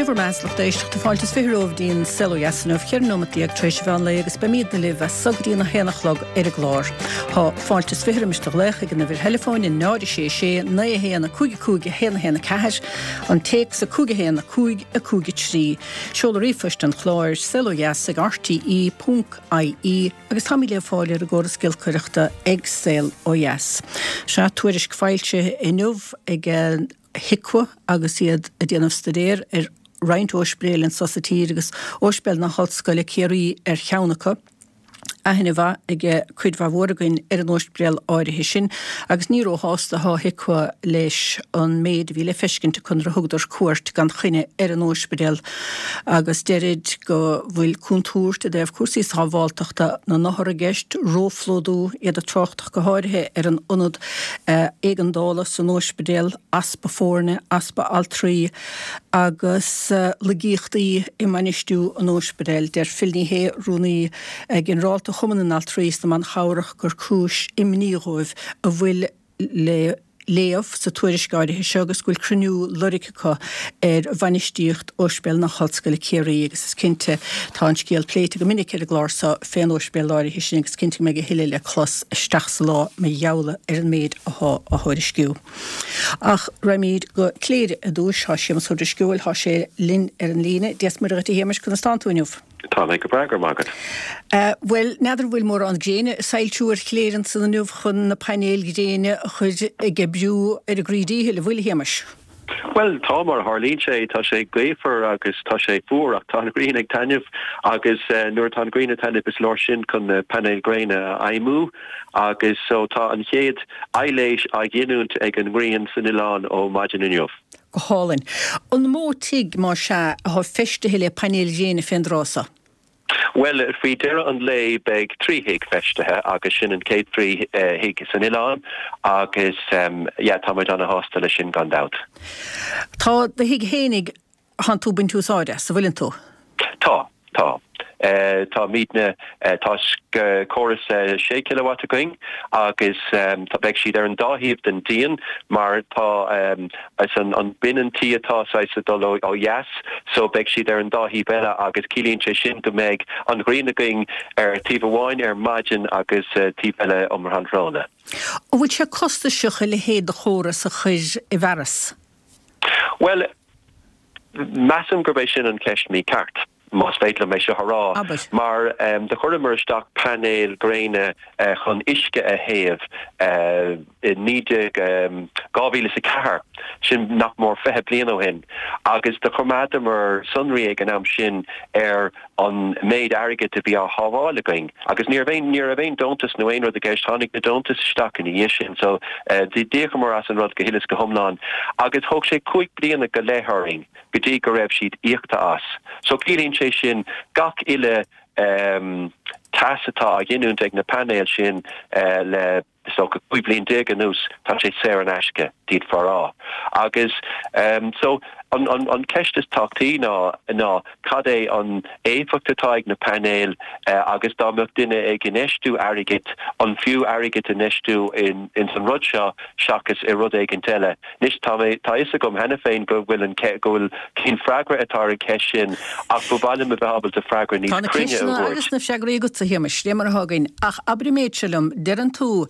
Sé bhur mbeatha a lucht éisteachta fáilte is 20 romhaibh dtí'n Saol Ó Dheas inniu, 14 nóimeat tar éis an mheán lae agus beimídne libh as so go dtí an 1 a chlog ar an gclár. Tá fáilte is 20 roimis do ghlaoch ag an uimhir theileafóin 0 6 6 9 1 5 5 1 1 4, an téacs 5 1 5 5 3. Seoladh ríomhphoist an chláir, saolodheas ag rte ponc ie, agus táimid le fáil ar an gcóras giolcaireachta ag Saol Ó Dheas. Sea, tuairisc foilsithe inniu ag HIQA agus iad ag déanamh staidéar ar roinnt óispidéil anso sa tír agus Óispidéal na hOllscoile Ciarraí ar cheann acu. Aithne mhaith ag cuid mhaith mhór againn ar an óispidéal áirithe sin agus ní róshásta atá HIQA leis an méid a bhí le feiscint acu nuair a thugadar cuairt gan choinne ar an óispidéal agus deirid go bhfuil contúirt i dtaobh cúrsaí sábháltachta na n-othar i gceist, róphlódú, iad ag trácht ach go háirithe ar an ionad éigeandála san óispidéal, easpa foirne, easpa altraí agus laigíochtaí i mbainistiú an óispidéil. Deir Phil Ní Sheaghdha, Rúnaí Ginearálta Chumann na nAltraí is na mBan Chabhrach gur cúis imní dhóibh a bhfuil le léamh sa tuairisc áirithe seo agus go bhfuil cruinniú lorgtha acu ar bhainistíocht Ospidéal na hOllscoile Ciarraí agus is cinnte tá an scéal pléite go minic ar an gclár seo fén óispidéal áirithe sin agus cinnte go mbeidh a thuilleadh le clos isteach sa lá mar gheall ar an méid athá á thuairisciú. Ach raghaimid go Cléire ar dtúis. Tá Séamus Ó Drisceoil, tá sé linn ar an líne. Dia 's Muire dhuit a Shéamais, conas tánn tú inniu? Tá mé go breá, go raibh maith agat. Bhuel, n'fheadar an bhfuil mórán gréine ag soilsiú ar Chléire ansan inniu chun na painéil ghréine a chur ag oibriú ar a gcroí díchill, an bhfuil, a Shéamais? Bhuel, tá, mar a tharlaíonn sé, tá sé gaofar agus tá sé fuar ach tá an ghrian ag taitneamh agus nuair atá an ghrian ag taitneamh is leor sin chun na painéil ghréine a fheidhmiú agus so tá an chéad aibhléis á ghiniúint ag an ngrian san oileán ó maidin inniu. Go hálainn. An mó tigh, más ea, athá feistithe le painéil ghréine fén dtráth so? Bhuel, faoi dheireadh an lae beidh 3 thigh feistithe agus sin an chéad 3 thigh san oileán agus yeah, tá muid ana-shásta leis sin gan dabht. Tá do thigh fhéinig, thánn tú ag baint úsáid as, an bhfuileann tú? Tá. Tá. Táimidne, tá córas 6 kilowatt againn agus tá, beidh siad ar an dá thaobh den díon mar tá is an binn an tí atá saghas ag dul ó dheas so beidh siad ar an dá thaobh eile agus ciallaíonn sé sin go mbeidh an ghrian againn ar taobh amháin ar maidin agus taobh eile um thráthnóna. An bhfuil sé costasach a leithéid de chóras a chur i bhfearas? Bhuel, Measaim gurb é sin an cheist mícheart, más féidir liom é seo a rá, Abair. mar do chuireamar isteach painéil ghréine chun uisce a théamh i 19, 2004, sin nach mór 20 bliain ó shin, agus do choimeádamar sonraí ag an am sin ar an méid airgid a bhí á shábháil againn agus ní raibh aon, ní raibh aon deontas nó aon rud i gceist, tháinig na deontais isteach ina dhiaidh sin so d'íocamar as an rud go huile is go hiomlán agus thóg sé cúig bliana go leith orainn go dtí go raibh siad íoctha as. So ciallaíonn sé sin gach uile teas atá á ghiniúint ag na painéil sin le is dócha 15 bliain anuas, tá sé saor in aisce, d'fhéadfá a rá. Agus so an an ceist is tábhachtaí ná ná cad é an éifeacht atá ag na painéil agus dá mbeadh duine ag infheistiú airgid, an fiú airgead a infheistiú in ins an rud seo seachas i rud éigint eile. Anois tá mé, tá fhios agam cheana féin go bhfuil an go bhfuil cén freagra atá ar an cheist sin ach ba mhaith liom a bheith ábalta freagra níos Tá na cruinne a ceisteanna thabhairt. agus na freagraí agatsa, a Shéamais, dé mar atá againn. Ach abair an méid seo liom, deireann tú,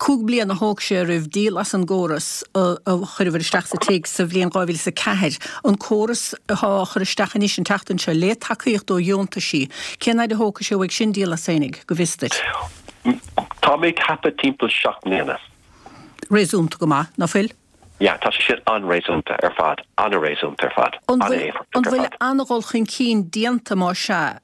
cúig bliana a thóg sé oraibh díol as an gcóras a chuireabhair isteach sa tigh sa bhliain 2004, an córas athá á chur isteach anois an tseachtain seo, le tacaíocht ó dheontaisí, cén fhaid a thógfaidh sé uaidh sin díol as fhéinig, go bhfios duit? Tá mé ag ceapadh timpeall 7 mbliana. Réasúnta go maith, ná fuil? Yeah, tá sé sin an-réasúnta ar fad, an-réasúnta ar fad, An bhfuil, an-éifeachtach an ar bhfuil fad. an-dhul chun cinn déanta, más ea,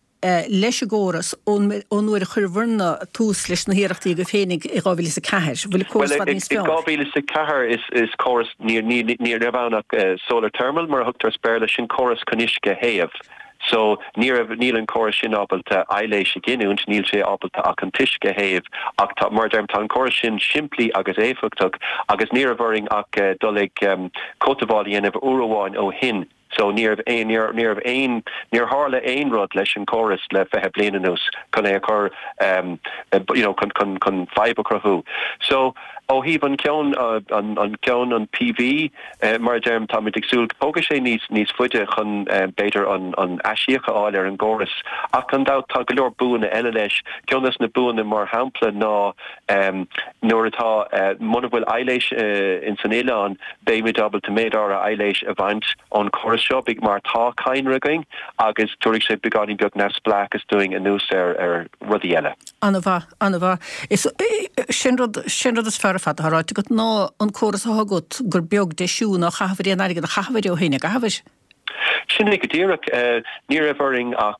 leis an gcóras ón, ón uair a chuireabhair-ne tús leis na hiarrachtaí agaibh féinig i 2004? An bhfuil an córas Bhuel, i bhfad i, níos i fearr? 2004 is, is córas, ní, ní, ní raibh ann ach solar thermal mar a thugtar as Béarla, sin córas chun uisce a théamh. So, ní raibh, níl an córas sin ábalta aibhléis a ghiniúint, níl sé ábalta ach an t-uisce a théamh ach tá, mar a deirim, tá an córas sin simplí agus éifeachtach agus ní raibh orainn ach dul ag cothabháil a dhéanamh uair amháin ó shin. So, ní raibh aon, ní raibh, ní raibh aon, níor tharla aon rud leis an córas le 20 bliain anuas chun é a chur, you know, chun, chun, chun fadhb a chruthú. So. Ó thaobh an ceann, an ceann, an PV, mar a deirim, táimid ag súil, tógfaidh sé níos, níos faide chun, b'fhéidir, an, an aisíoc a fháil ar an gcóras. Ach gan dabht, tá go leor buanna eile leis. Ceann des na buanna, mar shampla, ná nuair atá, muna bhfuil aibhléis ins an oileán, beimid ábalta méid áirithe aibhléis a bhaint ón chóras seo, mar tá cadhnra againn agus tabharfaidh sé beagáinín beag neamhspleáchas dúinn anuas ar, ar rudaí eile. An-mhaith. An-mhaith. Is sin rud, sin rud is fearr ar fad atá ráite agat ná an córas atá agat gur beag deisiú ná chaitheamhair aon airgead a chaitheamhair ó shin, a gcaitheamhair? Sin é go díreach. Ní raibh orainn ach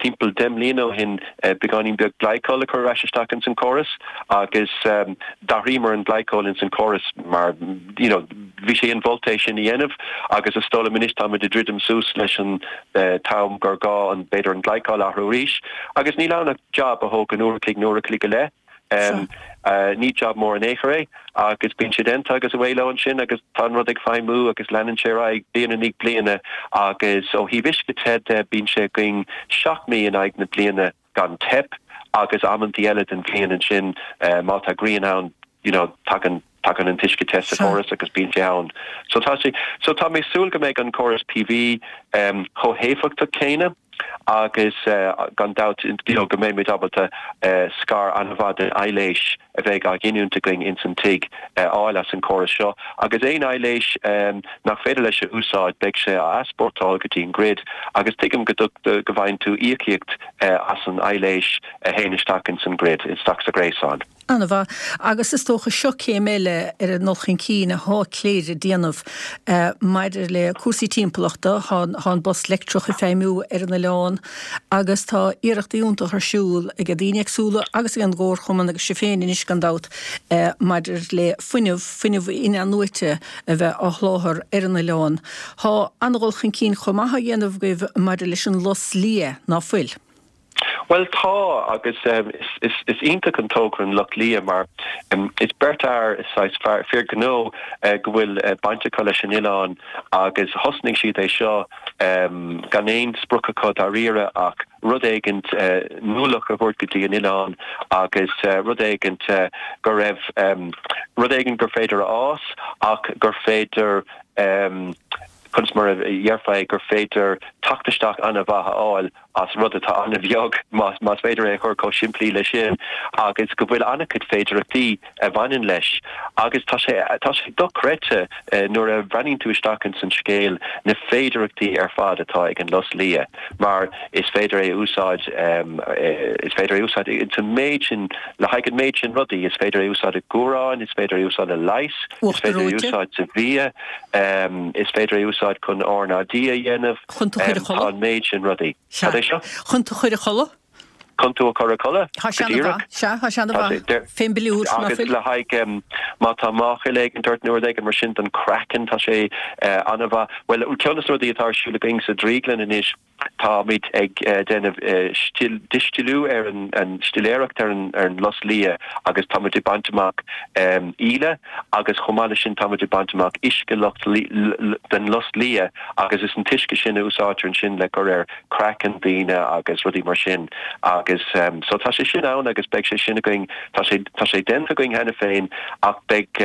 timpeall 10 mbliana ó shin beagáinín beag glycol a chur ar ais isteach ins an córas agus d'athraíomar an glycol ins an córas mar you know bhí sé inmholta é sin a dhéanamh agus is dóigh liom anois táimid ag druidim suas leis an t-am gur gá an b'fhéidir an glycol a athrú arís agus níl ann ach jab a thógann uair a chloig nó uair a chloig go leith. Ní jab mór in aon chor é agus bíonn sé déanta agus away leo ansin agus tá an rud ag feidhmiú agus leanann sé ar aghaidh bliain i ndiaidh bliana agus ó thaobh uisce te de bíonn sé againn 7 mí in aghaidh na bliana gan teip agus amantaí eile den bhliain ansin má tá grian ann you know tagann tagann an t-uisce te sa chóras agus bíonn sé ann. So tá sé so tá mé ag súil go mbeidh an córas PV chomh héifeachtach céanna agus gan dabht you know go mbeimid ábalta scair an-mhaith den aibhléis a bheidh á ghiniúint againn ins an tigh a fháil as an chóras seo agus aon aibhléis nach féidir leis a úsáid beidh sé á easpórtáil go dtí an grid agus tuigim go go bhfaigheann tú íocaíocht as an aibhléis a théann isteach ins an grid, isteach sa ghréasán. An-mhaith. Agus is dócha seo céim eile ar an ndul chun cinn athá Cléire ag déanamh maidir le cúrsaí timpeallachta. Thá an bus leictreach ag feidhmiú ar an oileán agus tá iarrachtaí iontacha ar siúl ag daoine éagsúla agus ag an gComharchumann agus sibh féin anois gan dabht maidir le fuinneamh, fuinneamh in-athnuaite a bheith á sholáthar ar an oileán. Thá an-dhul chun cinn chomh maith á dhéanamh agaibh maidir leis an lus liath, ná fuil? Bhuel tá, agus is iontach an togra an Lus Liath mar is beirt fhear, is saghas fir gnó go bhfuil baint acu leis an oileán agus thosnaigh siad é seo gan aon sprioc acu dáiríre ach rud éigint nuálach a thabhairt go dtí an oileán agus rud éigint go raibh, rud éigint gur féidir a fhás ach gur féidir conas mar a dhéarfá é, gur féidir teacht isteach an-mhaith a fháil as rud atá an-bheag, más féidir é a chur chomh simplí leis sin, agus go bhfuil an-chuid féidearthachtaí a bhaineann leis. Agus tá sé, tá sé dochreidte nuair a bhreathnaíonn tú isteach ins an scéal, na féidearthachtaí ar fad atá ag an lus liath, mar is féidir é a úsáid, is féidir é a úsáid ins an méid sin, le haghaidh an méid sin rudaí, is féidir é a úsáid i gcumhráin, is féidir é a úsáid le leigheas, is féidir é a úsáid sa bhia. Is féidir é a úsáid chun RnaG a dhéanamh. Chun tú a chur a chodladh. Tá an méid sin rudaí. Cad é seo? Chun tú a chur a chodladh. Chun tú a chur a chodladh? Tá sé ana-mhaith. Sea, tá sé ana-mhaith. Fén bpiliúr, ná fuil? Agus le haghaidh, má tá máchail éigin ort nó rud éigin mar sin don chraiceann, tá sé ana-mhaith. Bhuel, ceann de na rudaí atá ar siúl againn sa drioglann anois, Táimid ag déanamh distiliú ar an stiléireacht ar an lus liath agus táimid ag baint amach íle agus chomh maith leis sin táimid ag baint amach uisce den lus liath agus is an t-uisce sin a úsáidtear ansin le cur ar chraiceann daoine agus rudaí mar sin agus so tá sé sin ann agus beidh sé sin againn, tá sé tá sé déanta againn cheana féin ach beidh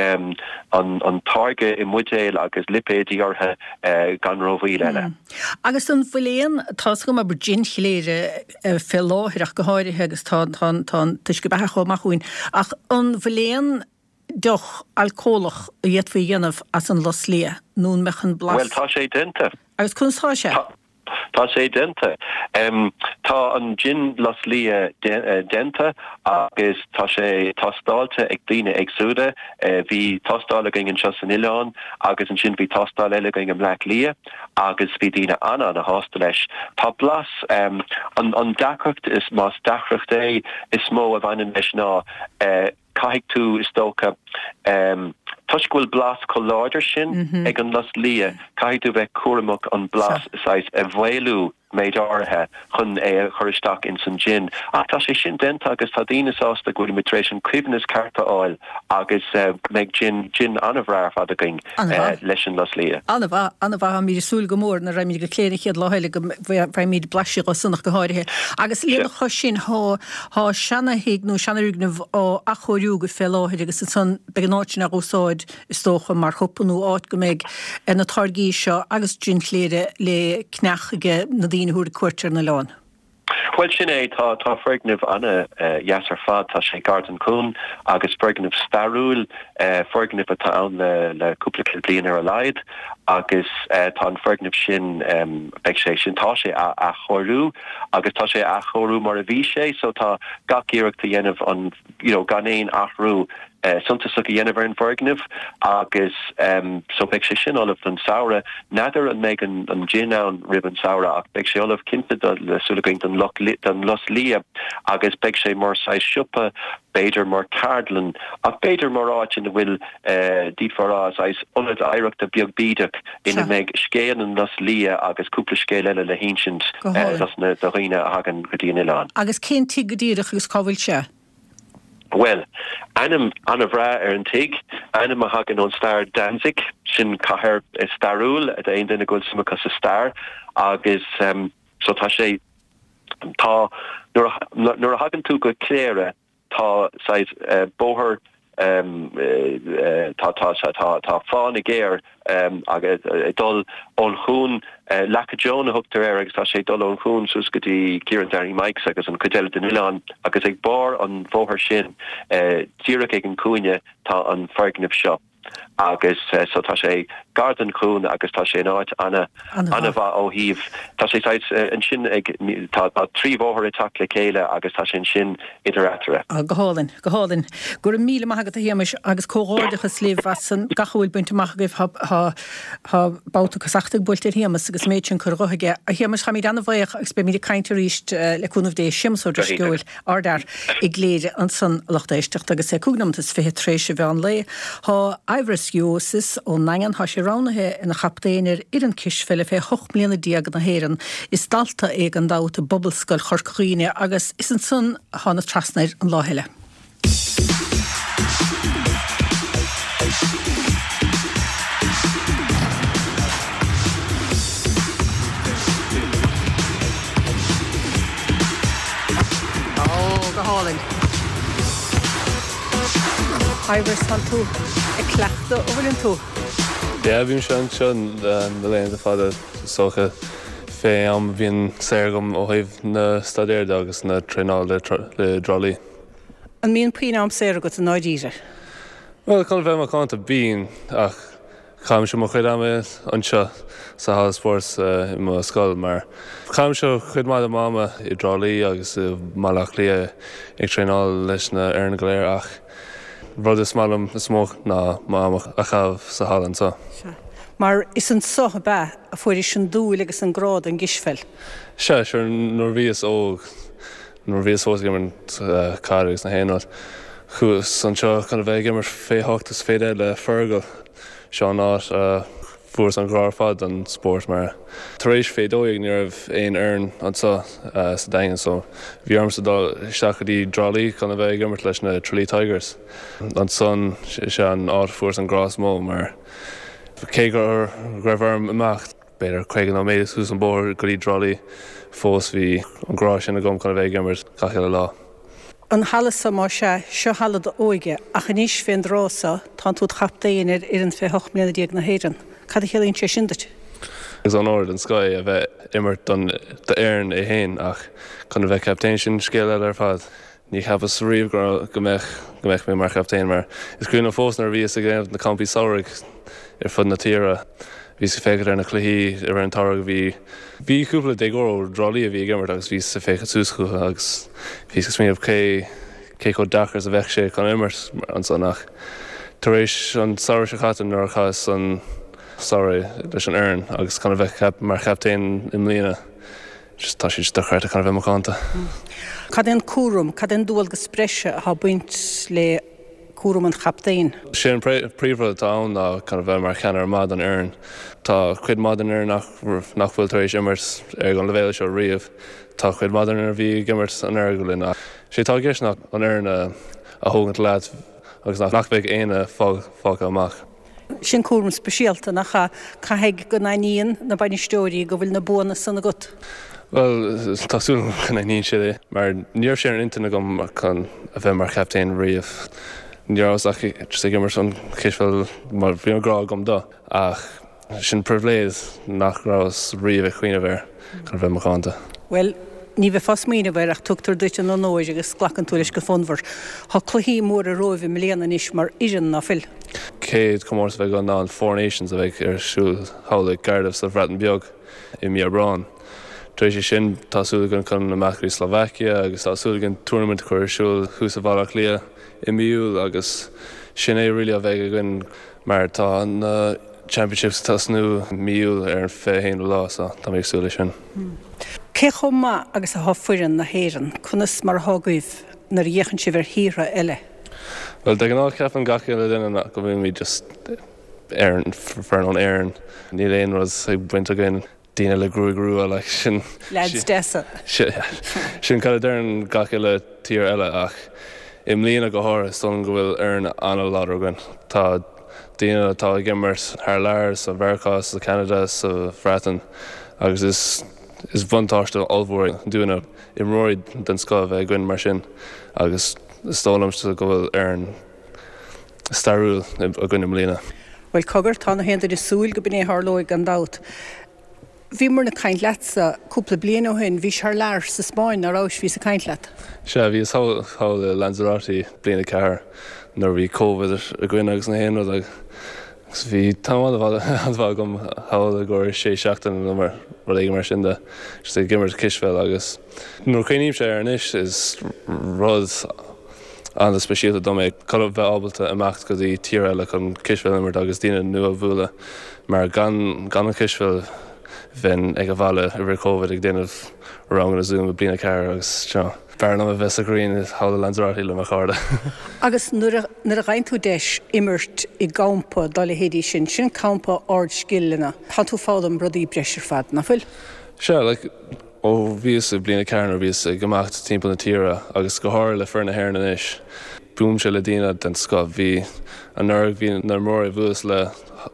an táirge i mbuidéil agus lipéidí orthu gan rómhoill eile. Agus an bhfuil aon, tá 'fhios agam abair jin Chléire fé láthair ach go háirithe agus tá tá tá an t-uisce beatha chomh maith chugainn, ach an bhfuil aon deoch alcólach a d'fhéadfaí a dhéanamh as an lus liath nó an mbeadh an blas. Bhuel tá sé déanta. Agus conas tá sé? Tá tá sé déanta. Tá an jin lus liath déanta agus tá sé tástáilte ag daoine éagsúla. Bhí tástáil againn anseo san oileán agus ansin bhí tástáil eile againn i mBleá Cliath agus bhí daoine an-an-shásta leis. Tá blas, an deacracht, is más deacracht é, is mó a bhaineann leis ná caithfidh tú, is dócha, toisc go bhfuil blas chomh láidir sin ag an lus liath, caithfidh tú bheith cúramach an blas saghas a mhaolú. méid áirithe chun é a chur isteach ins an jin. Ach tá sé sin déanta agus tá daoine sásta go bhfuilimid tar éis an coibhneas ceart a fháil agus beidh jin, jin an-bhreá ar fad againn leis an lus liath. An-mhaith, an-mhaith. Táimid ag súil go mór nuair a raghaimid go Cléire an chéad lá eile go bhfaighimid blaiseadh dho san ach go háirithe. Agus lena chois sin, thá, thá seana-thigh nó seanfhoirgneamh á athchóiriú agaibh fé láthair agus ansan beidh an áit sin á úsáid is dócha, mar shiopa nó áit go mbeidh na táirgí seo agus jin Chléire le ceannach age na daoine a thabharfaidh cuairt ar an oileán. Bhuel, sin é, tá, tá foirgneamh ana-dheas ar fad, tá sé gar don chuan agus foirgneamh stairiúil, foirgneamh atá ann le, le cúpla céad bliain ar a laghad agus tá an foirgneamh sin, beidh sé sin, tá sé á athchóiriú agus tá sé á athchóiriú mar a bhí sé so tá gach iarracht á dhéanamh an, you know, gan aon athrú suntasach a dhéanamh ar an bhfoirgneamh agus so beidh sé sin ullamh don samhradh. N'fheadar an mbeidh an jin ann roimh an samhradh ach beidh sé ullamh cinnte do, le súil againn don don lus liath agus beidh sé mar saghas siopa, b'fhéidir mar ceardlann ach b'fhéidir mar áit ina bhfuil d'fhéadfá a rá saghas ionad oidhreachta beag bídeach ina mbeidh scéal an lus liath agus cúpla scéal eile le hinsint dos na do dhaoine a thagann go dtí an oileán. Agus cén tigh go díreach agus cá bhfuil sé? Bhuel, ainm an-bhreá ar an tigh, ainm a thagann ón stair Danzig, sin cathair stairiúil d'aon duine go bhfuil suim acu sa stair agus so tá sé, tá, nuair a, nuair a thagann tú go Cléire tá saghas bóthar, tá, tá, tá, tá fána géar agus ag dul ón chuan, Leaca Joan a thugtar air agus tá sé ag dul ón chuan suas go dtí Ciarán Danny Mikes agus an chuid eile den oileán agus ag barr an bhóthair sin díreach ag an cúinne tá an foirgneamh seo agus so tá sé gar don chuan agus tá sé in áit ana ana-mhaith ó thaobh tá sé saghas ansin ag tá tá 3 bhóthar ag teacht le chéile agus tá sé ansin idir eatarthu. Go hálainn. Go hálainn. Go raibh míle maith agat a Shéamais agus comhghairdeachas libh as an gach a bhfuil bainte amach agaibh. Tá tá babhta casachta buailte ar Shéamas agus an méid sin curtha dhe aige. A Shéamais, táimid an-bhuíoch agus beimid ag caint arís le cúnamh Dé. Séamas Ó Drisceoil, ardfhear i gCléire ansan a lucht éisteachta agus é 5 nóimeat is 20 tar éis an mheán lae. Tá Ivris Juozas ón nDaingean, tá sé roghnaithe ina chaptaen ar fhoireann cispheile fé 18 mbliana na hÉireann. Is dalta é gan dabht i bPobalscoil Chorca Dhuibhne agus is ansan a thána trasna air an lá eile. Ó, go hálainn. Ivris, tánn tú ag cleachtadh, an bhfuileann tú? Yeah, bímse anseo na laethanta fada, is dócha, fé am a bhíonn saor agam ó thaobh na staidéir de agus na traenála le i dTrá Lí. An mbíonn puinn am saor agat i ndáiríre? Bhuel, chun a bheith macánta, bíonn, ach caithimse mo chuid ama anseo sa halla spóirt i mo scoil mar caithimse cuid mhaith de m'ama i dTrá Lí agus i mBaile Átha Cliath ag traenáil leis na fhoireann go léir ach rud is maith liom is mó ná m'am a chaitheamh sa halla anseo. Sea. Mar is anso ab ea a fuairis an dúil agus an grá don gcispheil? Sea, sure, nuair a bhíos óg, nuair a bhíos fós ag imirt caide agus na haon rud, chuas anseo chun a bheith ag imirt fé hocht is fé deich le Fergal. Seo an áit a fuaireas an grá ar fad don spórt mar tar éis fé 12 ní raibh aon fhoireann anseo sa Daingean so bhí ormsa dul isteach go dtí dTrá Lí chun a bheith ag imirt leis na Tralee Tigers. Ansan is ea an áit a fuaireas an grá is mó mar cé go raibh orm imeacht b'fhéidir 50 nóiméad suas an bóthar go dtí dTrá Lí fós bhí an grá sin agam chun a bheith ag imirt gach uile lá. An halla so, más ea, seo halla d'óige, ach anois fén dtráth so, tánn tú id chaptaen ar fhoireann fé hocht mbliana déag na hÉireann. Cad a chiallaíonn sé sin duit? Is onóir den scoth é a bheith imirt don d'fhoireann é féin ach chun a bheith captaen sin scéal eile ar fad. Ní cheapas riamh go go mbeadh go mbeadh mé mar chaptaen mar is cuimhin liom fós nuair a bhíos ag déanamh na campaí samhraidh ar fud na tíre bhíos ag féachaint ar na cluichí i rith an tsamhraidh bhí bhí cúpla déagóir ó dTrá Lí a bhí ag imirt agus bhíos ag féachaint suas chucu agus bhíos ag smaoineamh cé cé chomh deacair is a bheadh sé chun imirt ansan ach tar éis an samhradh seo caite nuair a chaitheas an samhradh leis an fhoireann agus chun a bheith mar chaptaen i mbliana Just tá sé just dochreidte chun a bheith macánta. Cad é an cúram, cad é an dualgas breise atá ag baint le. cúram an chaptaein? Sé an príomhrud atá ann ná chun a bheith mar cheannaire maith don fhoireann. Tá cuid mhaith den fhoireann nach bhfuil tar éis imirt ar an leibhéal seo riamh. Tá cuid mhaith den fhoireann a bhí ag imirt anuraidh linn ach sé atá i gceist ná an fhoireann a thógaint leat agus nach mbeidh éinne fágtha amach. Sin cúram speisialta, nach ea? Caithfidh go n-aithníonn na bainisteoirí go bhfuil na buanna san agat. Bhuel, tá súil agam go n-aithníonn siad é, mar ní raibh sé ar intinn agam chun a bheith mar chaptaen riamh. Ní rabhas ach just ag imirt an chispheil mar bhí an grá agam dó, ach Sin pribhléid nach rabhas riamh ag cuimhneamh air chun a bheith macánta. Bhuel, ní bheifeá ag smaoineamh air ach tugtar duit an onóir agus glacann tú leis go fonnmhar. Tá cluichí móra romhaibh i mbliana anois mar fhoireann, ná fuil? Chéad chomórtas a bheidh againn ná an Four Nations a bheidh ar siúl thall i gCardiff sa Bhreatain Bheag i mí Aibreáin. Tar éis sin tá súil againn chun imeacht go dtí Slovakia agus tá súil againn tournament a chur ar siúl thuas i Bhaile Átha Cliath i mí Iúil agus sin é really a bheidh againn. Mar tá na Championships ag tosnú mí Iúil ar an 21ú lá so tá mé ag súil leis sin. Cé chomh maith agus atá foireann na hÉireann? Conas mar atá agaibh nuair a fhéachann sibh ar thíortha eile? Bhuel de ghnáth ceapann gach uile duine go bhfuilimid just Éireann, foireann ón Éirinn. Níl aon rud ag baint againn. daoine le gruaig rua like sin. Leaids deasa. Sin cad a deireann gach uile tír eile ach i mbliana go háirithe is dóigh liom go bhfuil foireann an-láidir againn. Tá daoine atá ag imirt thar lear, sa Mheiriceá, sa Cheanada, sa Bhreatain agus is is buntáiste ollmhór é dúinne imreoirí den scoth a bheith againn mar sin agus is dóigh liomsa go bhfuil foireann stairiúil againn i mbliana. Bhuel, cogar, tá na haon duine ag súil go b'in é a tharlóidh gan dabht. Bhíomar ag caint leatsa cúpla bliain ó shin, bhís thar lear sa Spáinn, ná rabhais, bhíos ag caint leat. Sea, bhíos thall i Lanzarote bliain a ceathair nuair a bhí Covid againn agus na haon rud agus bhí tam an-mhaith agam thall i gcomhair sé seachtaine nó mar rud éigin mar sin de, just ag imirt cispheil agus nuair a chuimhnímse air anois is rud an-speisialta dom é chun a bheith ábalta imeacht go dtí tír eile chun cispheil a imirt agus daoine nua a bhualadh mar gan gan an chispheil bheinn ag an bhaile i rith Covid ag déanamh ranganna Zoom i bliain a ceathair agus you know b'fhearr liom a bheith sa ghrian thall i Lanzarote le mo chairde. Agus nuair a nuair a fhaigheann tú deis imirt i gcampa dá leithéidí sin, sin campa ardscileanna, tá tú ag foghlaim rudaí breise ar fad, nach bhfuil? Sea, like. Ó bhíos i bliain a ceathair nuair a bhíos ag imeacht timpeall na tíre agus go háirithe le foireann na hÉireann anois, buailimse le daoine den scoth. Bhí anuraidh bhí na imreoirí a bhuaileas le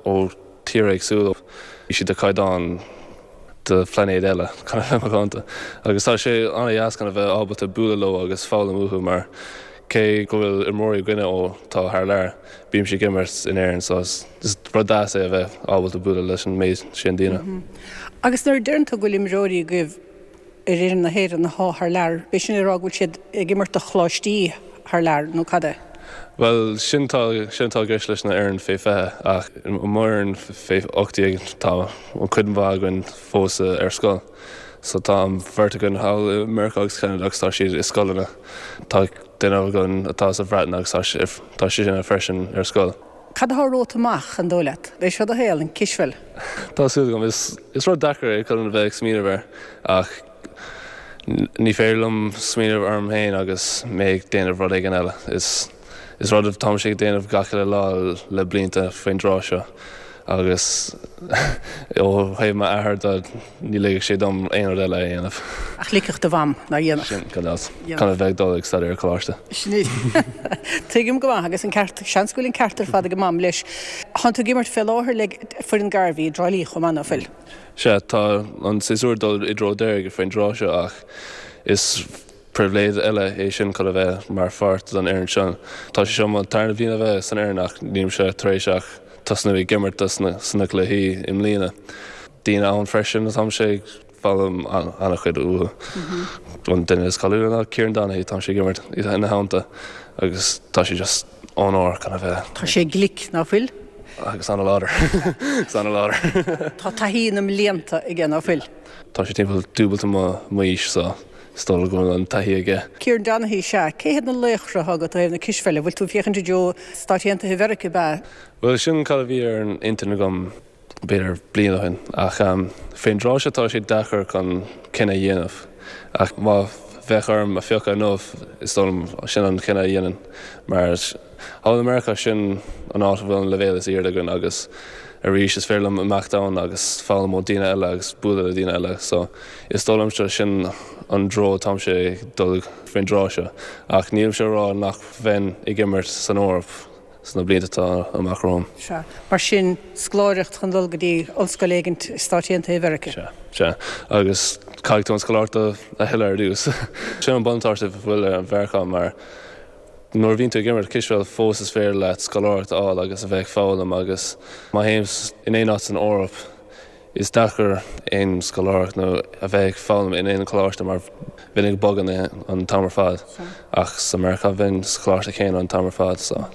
ó tíortha éagsúla, bhí siad de chaighdeán de phlainéad eile, chun a bheith macánta. Agus tá sé an-dheas chun a bheith ábalta bualadh leo agus foghlaim uathu mar cé go bhfuil imreoirí againne ó tá thar lear, bímse ag imirt in Éirinn so is rud deas é a bheith ábalta bualadh leis an méid sin daoine. Agus nuair a deireann tú go bhfuil imreoirí agaibh ar fhoireann na hÉireann athá thar lear, b'é sin le rá go bhfuil siad ag imirt do choláistí thar lear nó cad é? Bhuel, sin tá, sin atá i gceist leis na fhoireann fé 20 ach i mo fhoireann fé 18 tá an cuid mhaith againn fós ar scoil. So tá an bheirt againn thall i Meiriceá agus Ceanada agus tá siad i scoileanna. Tá duine againn atá sa Bhreatain agus tá sé, tá sé sin freisin ar scoil. Cad atá romhat amach, an dóigh leat? B'é seo do shaol, an cispheil? Tá súil agam. Is, is rud deacair é chun a bheith ag smaoineamh air ach ní féidir liom smaoineamh orm féin agus mé ag déanamh rud éigin eile. Is, is rud atáimse ag déanamh gach uile lá le blianta faoin dtráth seo agus ó thaobh m'athair de ní ligfeadh sé dom aon rud eile a dhéanamh. Ach ligfeadh do mham, nár dhéanfadh? Sin, gan dabht. Chun a bheith ag dul ag staidéar ar coláiste. Sin é. Tuigim go maith agus an ceart, seans go bhfuil an ceart ar fad ag a mam leis. Tánn tú ag imirt fé láthair le foireann Garvey i dTrá Lí chomh maith, ná fuil? Sea, tá an séasúr ag dul i dtreo deiridh faoin dtráth seo ach is Pribhléid eile é sin chun a bheith mar pháirt den fhoireann seo. Tá sé seo mo tarna bhliain a bheith san fhoireann ach nílimse tar éis ach tosnú ag imirt sna cluichí i mbliana. Daoine ann freisin atáimse ag foghlaim an-chuid uathu. An duine is cáiliúla ná Kieran Donaghy, táimse ag imirt ina theannta agus tá sé just onóir chun a bheith. Tá sé glic, ná fuil? Agus an-láidir. Agus an-láidir. Tá taithí na mblianta aige, ná fuil? Tá sé timpeall dúbailte m'aois so Is dóigh liom go bhfuil an taithí aige. Kieran Donaghy, Sea, cé hiad na laochra atá agat ó thaobh na cispheile? Bhfuil tú ag féachaint i dtreo Stáit Aontaithe Mheiriceá, ab ea? Bhuel, sin cad a bhí ar an intinn agam b'fhéidir bliain ó shin. Ach fén dtráth seo tá sé deacair chun cinneadh a dhéanamh. Ach má. bheadh orm a phiocadh inniu, is dóigh liom sin an cinneadh a dhéanfainn mar thall i Meiriceá sin an áit a bhfuil an leibhéal is airde againn agus arís is féidir liom imeacht ann agus foghlaim ó daoine eile agus bualadh le daoine eile so is dóigh liomsa sin an treo atáimse ag dul faoin dtráth seo ach nílimse ag rá nach bheinn ag imirt san Eoraip sna blianta atá amach romham. Sea. Mar sin, scoláireacht chun dul go dtí ollscoil éigint i Stáit Aontaithe Mheiriceá. Sea. Sea. Agus caithfidh tú an scoláireacht a thuilleadh ar dtús. Sin an buntáiste a bhfuil ar Mheiriceá mar nuair a bhíonn tú ag imirt cispheil fós is féidir leat scoláireacht a fháil agus a bheith ag foghlaim agus má théim in aon áit san Eoraip is deacair aon scoláireacht nó a bheith ag foghlaim in aon choláiste mar bheinn ag bogadh an t-am ar fad ach sa Meiriceá bheinn sa choláiste céanna an t-am ar fad so.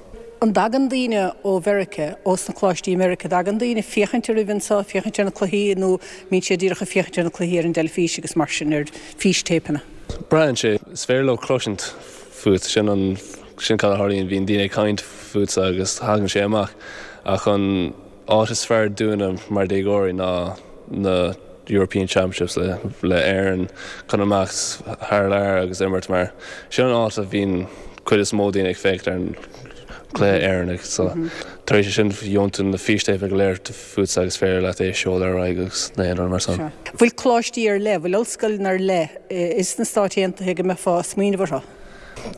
An dtagann daoine ó Mheiriceá, ós na coláistí i Meiriceá, dtagann daoine féachaint oraibh anseo, féachaint ar na cluichí nó mbíonn siad díreach ag féachaint ar na cluichí ar an dteilifís agus mar sin ar fístéipeanna? Braitheann sé. Is féidir leo cloisint fút, sin an, sin cad a tharlaíonn, bíonn daoine ag caint fútsa agus thagann sé amach. Ach an áit is fearr dúinne mar déagóirí ná na European Championships le, le Éirinn chun imeacht thar lear agus imirt mar sin an áit a bhíonn cuid is mó daoine ag féachaint ar an gcluiche Éireannach. So tar éis sin gheobhann tú na fístéipeanna go léir fútsa agus féidir leat é a seoladh ar aghaidh agus na haon rud mar san. Bhfuil coláistí ar leith, bhfuil ollscoileanna ar leith is na Stáit Aontaithe go mbeifeá ag smaoineamh orthu?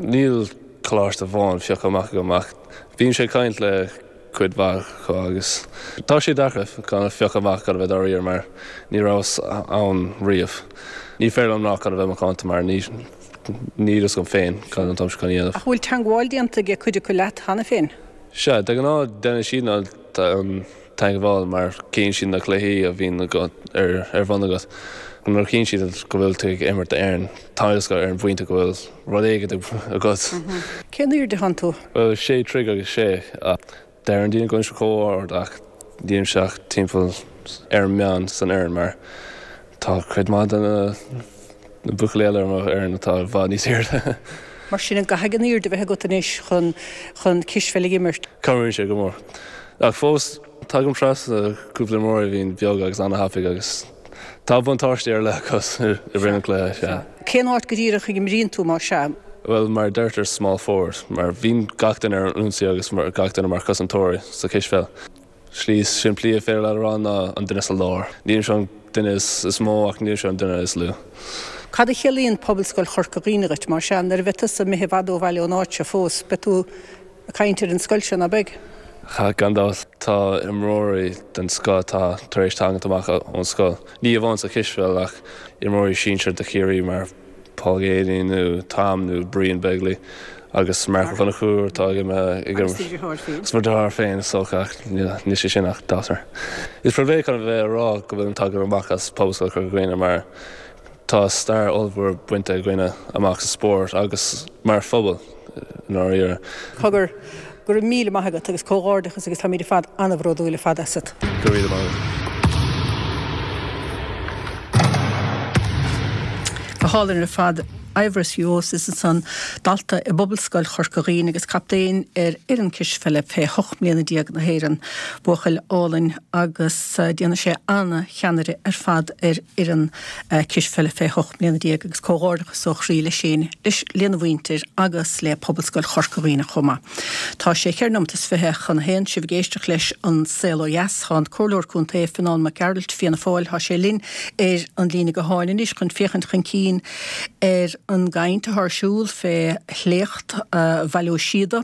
Níl coláiste amháin pioctha amach agam ach bímse ag caint le cuid mhaith acu agus tá sé deacair chun a phiocadh amach chun a bheith dáiríre mar ní rabhas ann riamh. Ní féidir liom ná chun a bheith macánta mar ní níl fhios agam féin cad atáimse chun a dhéanamh. Ach bhfuil teangmháil déanta ag cuid acu leat cheana féin? Sea, de ghnáth déanann siad an teagmháil mar cíonn siad na cluichí a bhíonn ar bun agat. Nuair a chíonn siad go bhfuil tú ag imirt d'Éirinn, tá fhios acu ar an bpointe go bhfuil rud éigin agat. Cén airde atánn tú? Bhuel, sé troigh agus sé. Deireann daoine go bhfuilimse chomh ard ach nílimse ach timpeall ar an meán san fhoireann mar tá cuid maith de na buachaillí eile ar mo fhoireann atá i bhfad níos airde. Mar sin, an gcaithfidh an airde a bheith agat anois chun chun cispheil a imirt? Cabhraíonn sé go mór. Ach fós, tagaim trasna cúpla imreoir a bhíonn beag agus an-thapaidh agus tá buntáistí ar leith acu i rith an chluiche, sea. Cén áit go díreach a imríonn tú, más ea? Bhuel, mar a deirtear small forward, mar bhíonn gach duine ar an ionsaí agus gach duine mar chosantóirí sa chispheil. Slí is simplí a féidir leat a rá ná an duine sa lár. Nílimse an duine is mó ach nílimse an duine is lú. Cad a chiallaíonn Pobalscoil Chorca Dhuibhne dhuit, más ea? Nuair a bheidh tusa imithe i bhfad ó bhaile ón áit seo fós, beidh tú ag caint ar an scoil seo, ná beidh? Gan dabht. Tá imreoirí den scoth atá tar éis tagaint amach ón scoil. Ní amháin sa chispheil ach imreoirí sinsir do Chiarraí mar Paul Geaney nó Tom nó Brian Begley agus Marc Ó Conchúir atá ag imirt. Agus do dheartháir féin. Agus mo dheartháir féin is dócha ach níl sé sin ach deartháir. Is pribhléid chun a bheith ag rá go bhfuilim tagtha amach as Pobalscoil Chorca Dhuibhne mar tá stair ollmhór bainte againne amach sa spórt agus mar phobal i ndáiríre. Cogar, go raibh míle maith agat agus comhghairdeachas agus táimid ar fad an-bhródúil ar fad asat. Go raibh míle maith agat. Go hálainn ar fad. Eibhris Juosis ansan, dalta i bPobalscoil Chorca Dhuibhne agus captaen ar fhoireann cispheile fé 18 mbliana na hÉireann. Buachaill álainn agus déanfaidh sé an-cheannaire ar fad ar fhoireann cispheile fé 18 mbliana agus comhghairdeachas ó chroí leis féin, leis, lena mhuintir agus le Pobalscoil Chorca Dhuibhne chomh maith. Tá sé cheithre nóimeat is 20 chun a haon, sibh ag éisteacht leis An Saol Ó Dheas. Tá an Comhairleoir Contae, Fionán Mac Gearailt, Fianna Fáil, tá sé linn ar an líne gutháin anois chun féachaint chun cinn ar an gcaint atá ar siúl fé shléacht Bhaile Ó Síoda,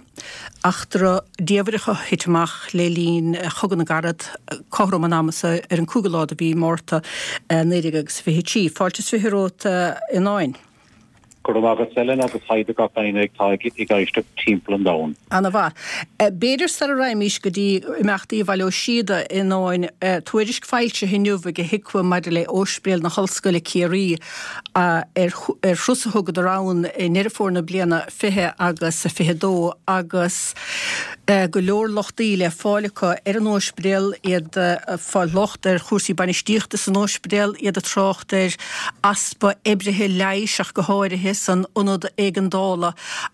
eachtra diamhrach a thit amach le linn Chogadh na gCarad, cothrom an ama so ar an 5ú lá de mhí Márta 1923. Fáilte is 20 romhat, a Fhionáin. Go raibh maith agat Ellen agus haigh do gach éinne atá ag éisteacht timpeall an domhain. Ana mhaith. B'fhéidir sara raghaimís go dtí imeachtaí Bhaile Ó Síoda, a Fhionáin, tuairisc foilsithe inniu ag HIQA maidir le Ospidéal na hOllscoile Ciarraí ar thuras a thugadar ann i nDeireadh Fómhair na bliana 20 agus 22 agus go leor lochtaí le fáil acu ar an ospidéal, iad ag fáil locht ar chúrsaí bainistíochta san ospidéal, iad ag trácht ar easpa oibrithe leighis ach go háirithe san ionad éigeandála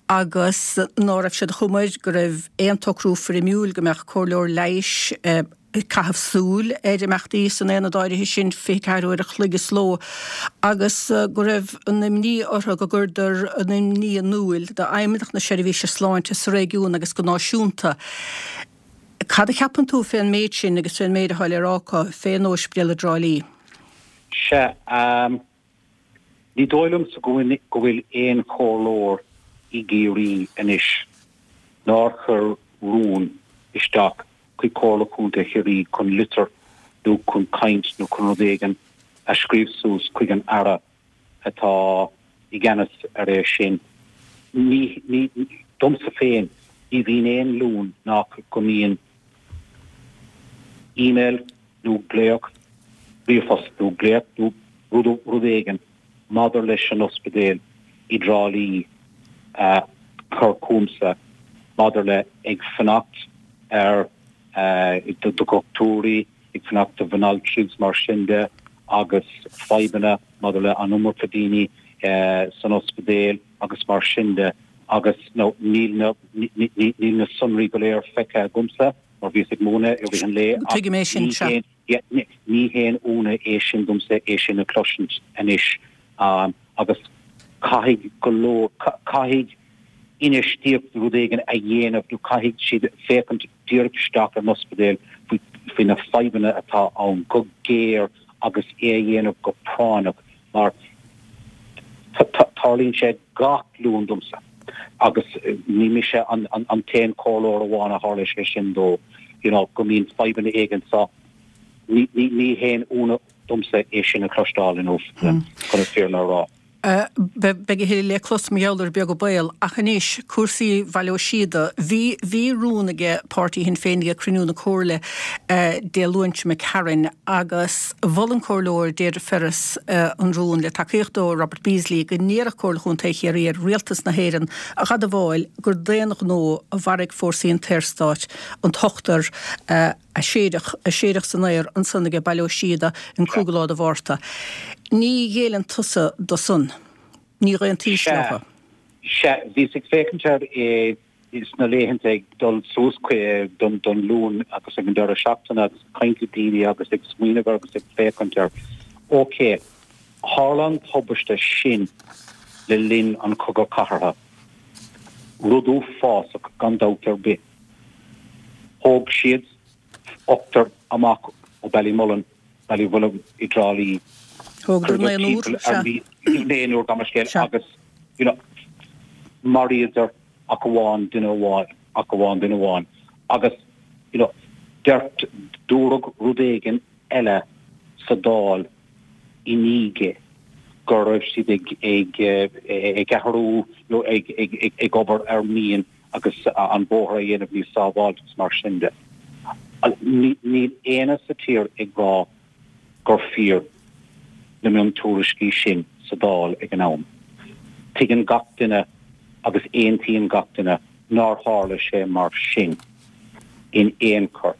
agus ná raibh siad chomh maith go raibh aon tsocrú foirmiúil go mbeadh comhairleoir leighis. ag caitheamh súil ar imeachtaí san aonad áirithe sin 24 uair a chloig sa ló agus go raibh an imní orthu go gcuireadar an imní in iúl d'Fheidhmeannacht na Seirbhíse Sláinte sa réigiún agus go náisiúnta. Cad a cheapann tú fén méid sin agus fén méid atá le rá acu fén Ospidéal i dTrá Lí? Sea, ní dóigh liomsa go bhfuil aon chomhairleoir i gCiarraí anois nár chuir rún isteach chuig Comhairle Contae Chiarraí chun litir nó chun caint nó chun rud éigin a scríobh suas chuig an Aire atá i gceannas ar é sin. Ní, ní, domsa féin, ní bhíonn aon Luan nach go mbíonn email nó glaoch, ríomhphost nó glaoch nó rud, rud éigin maidir leis an ospidéal i dTrá Lí a chur chugamsa maidir le ag fanacht ar do dhochtúirí, ag fanacht do bhanaltraí agus mar sin de agus fadhbanna maidir le an iomarca daoine san ospidéal agus mar sin de agus nó níl na níl na sonraí go léir feicthe agamsa mar bhíos ag múineadh i rith an lae ach Tuigim é sin, sea. Ní haon ionadh é sin domsa é sin a chloisint anois agus caithfidh go leor, caithfidh infheistíocht rud éigin a dhéanamh nó caithfidh siad féachaint díreach isteach ar an ospidéal faoi na fadhbanna atá ann go géar agus é a dhéanamh go práinneach mar tarlaíonn sé gach Luan domsa agus ní mise an t-aon chomhairleoir amháin a tharla sé sin dó, you know, go mbíonn fadhbanna éigin so ní haon ionadh domsa é sin a chloisteáil inniu, chun an fírinne a rá. Beidh a thuilleadh le clos mar gheall air beag an baol. Ach anois, cúrsaí Bhaile Ó Síoda. Bhí, bhí rún aige páirtí Shinn Féin ag cruinniú na Comhairle Dé Luain seo imigh tharainn agus mhol an Comhairleoir Deirdre Ferris an rún le tacaíocht ó Robert Beasley go n-iarrfadh Comhairle Chontae Chiarraí ar Rialtas na hÉireann a dh'admháil gur d'aon ghnó a mharaigh fórsaí an tSaorstáit an t-ochtar a séideadh, a séideadh san aer ansan aige Baile Ó Síoda an cúigiú lá de Mhárta. Ní ghéilleann tusa do san. Ní dh'aontaís leo. Sea, bhíos ag féachaint air sna laethanta ag dul suas don Luan agus ag an deireadh seachtaine agus ag caint le daoine agus ag smaoineamh air agus ag féachaint air. Ok, tharla an tubaiste sin le linn an Chogadh Cathartha. Rud uafásach gan dabht ar bith. Thóg siad ochtar amach ó Ballymullen, Ballywilliam i dTrá Lí. Thógadar naonúr, sea. Naonúr, gabh mo leithscéal, agus, you know, maraíodar ach amháin duine amháin, ach amháin duine amháin. Agus, you know, deir, dúradh rud éigin eile sa Dáil i ndiaidh go raibh siad ag, ag, ag athrú nó ag, ag, ag obair ar mhian agus an bóthar a dhéanamh níos sábháilte agus mar sin de. Níl éinne sa tír ag rá gur fíor na miontuairiscí sin sa Dáil ag an am. Tuigeann gach duine agus aontaíonn gach duine nár tharla sé mar sin in aon chor.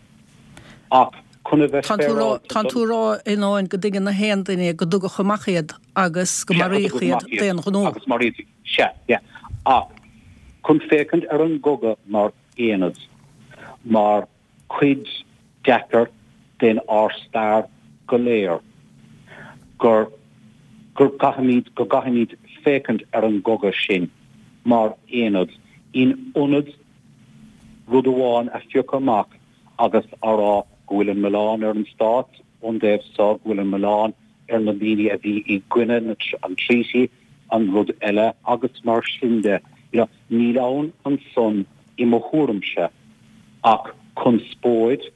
Ach chun a bheith féaráilte don. Tánn tú a rá i ndán go dtuigeann na haon duine go dtugadh amach iad agus go maraíodh iad d'aon ghnó. Agus maraíodh Sea, yeah. Ach chun féachaint ar an gcogadh mar aonad, mar chuid deacair den ár stair go léir, gur, gur gcaithfimid, go gcaithfimid féachaint ar an gcogadh sin mar aonad, in ionad rud amháin a phiocadh amach agus a rá go bhfuil an milleán ar an stát ón dtaobh so, go bhfuil an milleán ar na daoine a bhí i gcoinne an treaty, an rud eile agus mar sin de. You know, níl ann ansan i mo thuairimse ach conspóid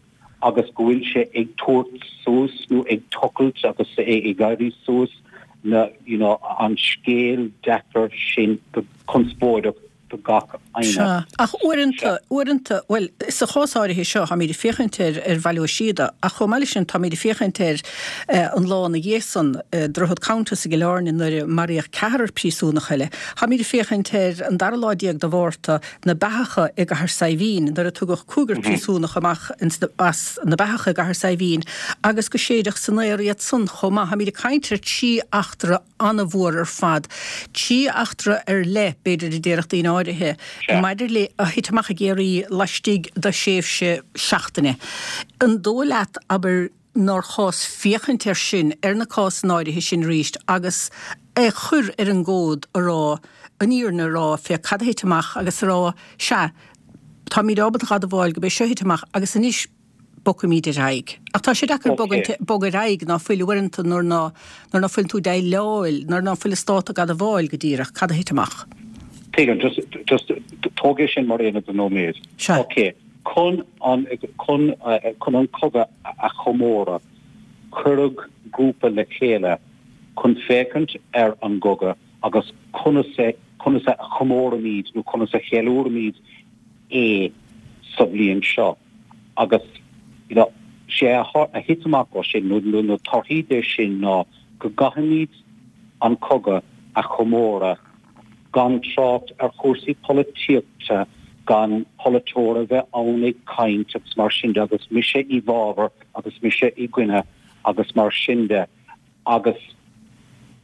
agus go bhfuil sé ag tabhairt suas nó ag tochailt agus ag éirí suas na, you know, an scéal deacair sin go conspóideach do gach éinne. Sea, ach uaireanta, uaireanta, bhuel, sa chás áirithe seo, táimid ag féachaint ar, ar Bhaile Ó Síoda, ach chomh maith leis sin, táimid ag féachaint ar an lá ina dhiaidh san, Droichead Countess i gCill Airne nuair a maraíodh ceathrar príosúnach eile. Táimid ag féachaint ar an dara lá déag de Mhárta, na beathacha i gCathair Saidhbhín, nuair a tugadh cúigear príosúnach amach as na beathacha i gCathair Saidhbhín agus go séideadh san aer iad san chomh maith. Táimid ag caint ar trí eachtra an-mhór ar fad. Trí eachtra ar leith, b'fhéidir, a déarfadh daoine áirithe. áirithe maidir le a thit amach i gCiarraí laistigh de thréimhse seachtaine. An dóigh leat, abair, nár chás féachaint air sin, ar na cásanna áirithe sin arís agus é chur ar an gcomhad a rá, an fhírinne a rá fé cad a thit amach agus a rá, sea, táimid ábalta a dh'admháil go b'é seo a thit amach agus anois bogfaimid ar aghaidh. Ach tá sé deacair bogadh ar aghaidh ná fuil uaireanta nuair ná nuair ná fuil tú ag déileáil, nuair ná fuil an stát ag admháil go díreach cad a thit amach. Tuigim, just, just tóg é sin mar aonad do nóiméad. Sea. Ok. Chun an, chun, chun an cogadh a chomóradh, cuireadh grúpa le chéile chun féachaint ar an gcogadh agus conas é, conas a chomóraimid nó conas a cheiliúraimid é sa bhliain seo. Agus, you know, sé a, a thit amach ó sin, nó na torthaí de sin ná go gcaithfimid an cogadh a chomóradh gan trácht ar chúrsaí polaitíochta, gan polaiteoir a bheith ann ag caint agus mar sin de agus mise i bhfabhar agus mise i gcoinne agus mar sin de agus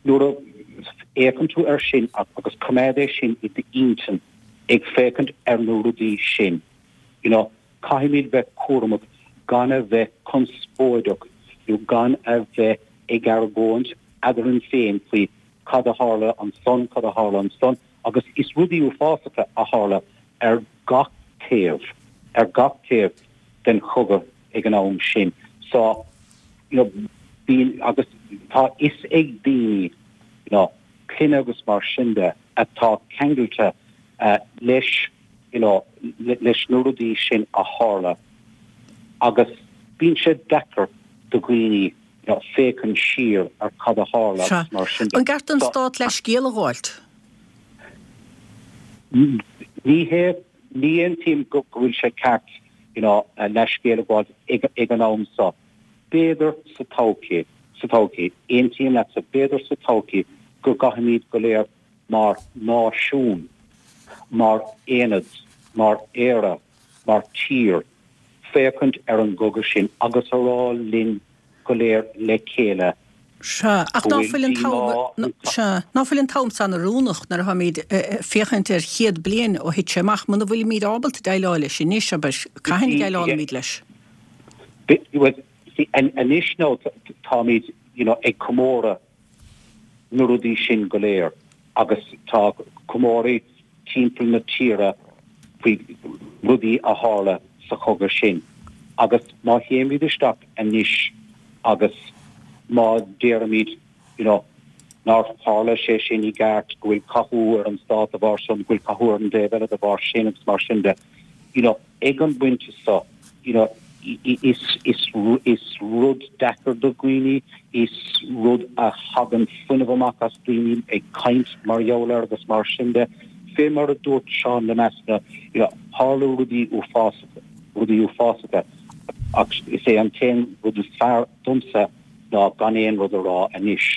nuair a fhéachann tú air sin agus coimeád é sin i d'intinn ag féachaint ar na rudaí sin, you know, caithfimid bheith cúramach gan a bheith conspóideach nó gan a bheith ag argóint eadrainn féin faoi cad a tharla ansan, cad a tharla ansan, agus is rudaí uafásacha a tharla ar gach taobh, ar gach taobh den chogadh ag an am sin. So, you know, bíonn, agus tá fhios ag daoine, you know, clainne agus mar sin de, atá ceangailte leis, you know, leis na rudaí sin a tharla agus bíonn sé deacair do dhaoine, féachaint siar ar cad a tharla agus mar sin de. An gceart don Stát leithscéal a ghabháilt? Ní hé, ní aontaím go bhfuil sé ceart you know leithscéal a ghabháilt ag an am seo. B'fhéidir sa todhchaí, sa todhchaí, aontaím leatsa, b'fhéidir sa todhchaí go gcaithfimid go léir mar náisiún, mar aonad, mar Éire, mar tír, féachaint ar an gcogadh sin agus a rá linn go léir le chéile Sea, ach go ná bhfuil fuil an t-am, díomá. sea, ná fuil an t-am san oiriúnach nuair atháimid ag féachaint ar chéad bliain ó thit sé amach, muna bhfuilimid ábalta déileáil leis anois, abair, cathain a dhéileálfaimid leis? Bhuel, see, anois now táimid, you know, ag comóradh na rudaí sin go léir agus tá comóraí timpeall na tíre faoi rudaí a tharla sa chogadh sin agus má théimid isteach anois agus má deirimid you know nár tharla sé sin i gceart, go bhfuil cathú ar an stát de bharr san, go bhfuil cathú ar an dtaobh eile de bharr sin agus mar sin de, you know ag an bpointe seo, you know, is, is, is rud deacair do dhaoine, is rud a thagann fuinneamh amach as daoine ag caint mar gheall air agus mar sin de. Fé mar a dúirt Seán Lemass, you know, tharla rudaí uafásacha, rudaí uafásacha ach is é an t-aon rud is fearr domsa ná gan aon rud a rá anois.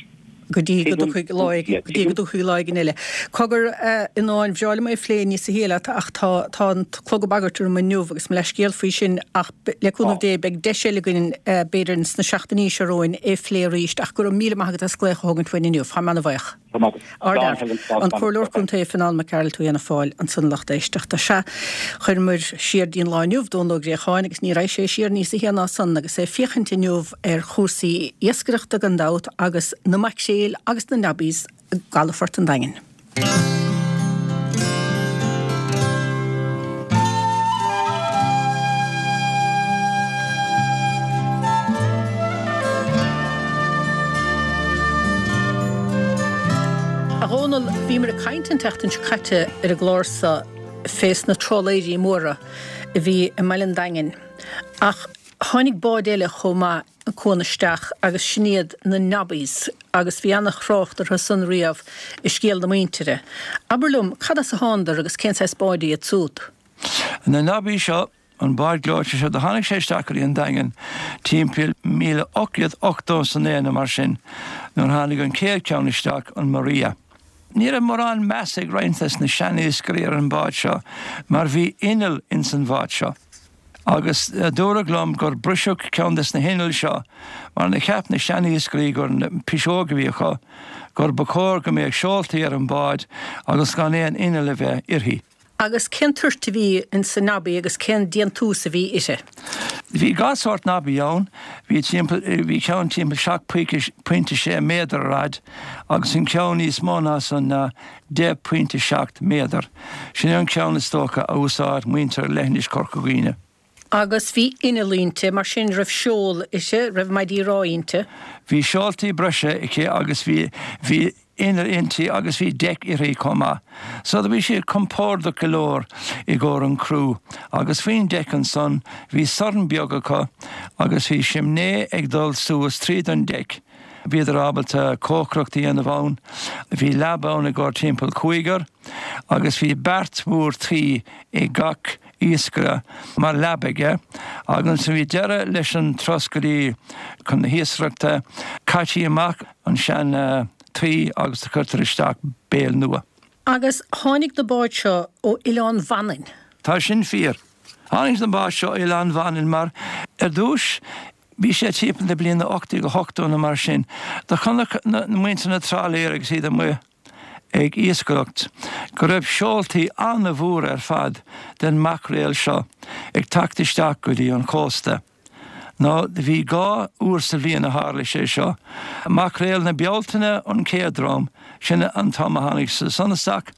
go dtí go dtiocfaidh lá éigin, go dtí go dtiocfaidh lá éigin eile. Cogar, a Fhionnáin, bhreá liom é a phlé níosa shia leat ach tá, tá an clog ag bagairt orm inniu agus mo leathscéal faoi sin ach le cúnamh Dé beidh deis eile againn b'fhéidir sna seachtainí seo romhainn é a phlé arís ach go raibh míle maith agat as glaoch a thógaint uainn inniu. Táim ana-bhuíoch. Ardfhear. An Comhairleoir Contae Fionnán Mac Gearailt ó Fhianna Fáil ansan a lucht éisteachta. Sea, chuireamar siar dtí'n lá inniu Dónal Ó Gréacháin agus ní raghaidh sé siar níosa shia ná san agus é ag féachaint inniu ar chúrsaí iascaireachta gan dabht agus na maicréil agus na nobbies i gcalafort an Daingin. A Dhónaill, bhíomar ag caint an tseachtain seo caite ar an gclár seo fés na trálaeirí móra a bhí i mbaile an Daingin ach tháinig bád eile chomh maith an cuan isteach agus sin iad na Nobbies agus bhí ana-thrácht orthu san riamh i scéal na muintire. Abair liom, cad as a thánadar agus cén saghas báid iad súd? Na Nobbies seo, an bád gleoite seo, do tháinig sé isteach go dtí an Daingean timpeall 1880 is a naoi nó mar sin nuair tháinig an chéad cheann isteach, an Maria. Ní raibh mórán meas ag roinnt des na sean-iascairí ar an bhád seo mar bhí inneall ins an bhád seo. Agus dúradh liom gur briseadh ceann des na hinnill seo mar na cheap na sean-iascairí gur piseog a bhí acu, gur ba chóir go mbeadh seoltaí ar an bhád agus gan aon inneall a bheith uirthi. Agus cén toirt a bhí ins an Nobby agus cén déantús a bhí uirthi? Bhí gach sórt Nobby ann. Bhí timpeall, bhí ceann timpeall 7.6 méadar ar fhad agus an ceann níos mó ná san ná 10.7 méadar. Sin é an ceann is dócha a úsáid muintir leithinis Chorca Dhuibhne. Agus bhí inneall inti, mar sin raibh seol uirthi, raibh maidí rámha inti? Bhí seoltaí breise aici agus bhí, bhí inneall inti agus bhí deic uirthi chomh maith. So do bhí siad compordach go leor i gcomhair an criú agus faoin deic ansan bhí sorn beag acu agus bhí simné ag dul suas tríd an deic. Bhíodar ábalta cócaireacht a dhéanamh ann. Bhí leaba ann i gcomhair timpeall cúigear agus bhí beart mhór tuí ag gach iascaire mar leaba aige agus nuair a bhí deireadh leis an turas go dtí chun na hiascaireachta, chaití amach an sean tuí agus do chuirtear isteach béal nua. Agus tháinig na báid seo ó Oileán Mhanainn. Tá sin fíor. Tháinig na báid seo ó Oileán Mhanainn mar ar dtúis bhí sé timpeall na bliana 1880 nó mar sin, do chonaic na muintir na trálaeir agus iad amuigh ag iascaireacht, go raibh seoltaí an-mhór ar fad den maicréal seo ag teacht isteach go dtí an chósta. Nó bhí 2 uair sa bhliain a tharla sé seo, maicréal na Bealtaine an chéad dream, sin an t-am a tháinig siad san isteach,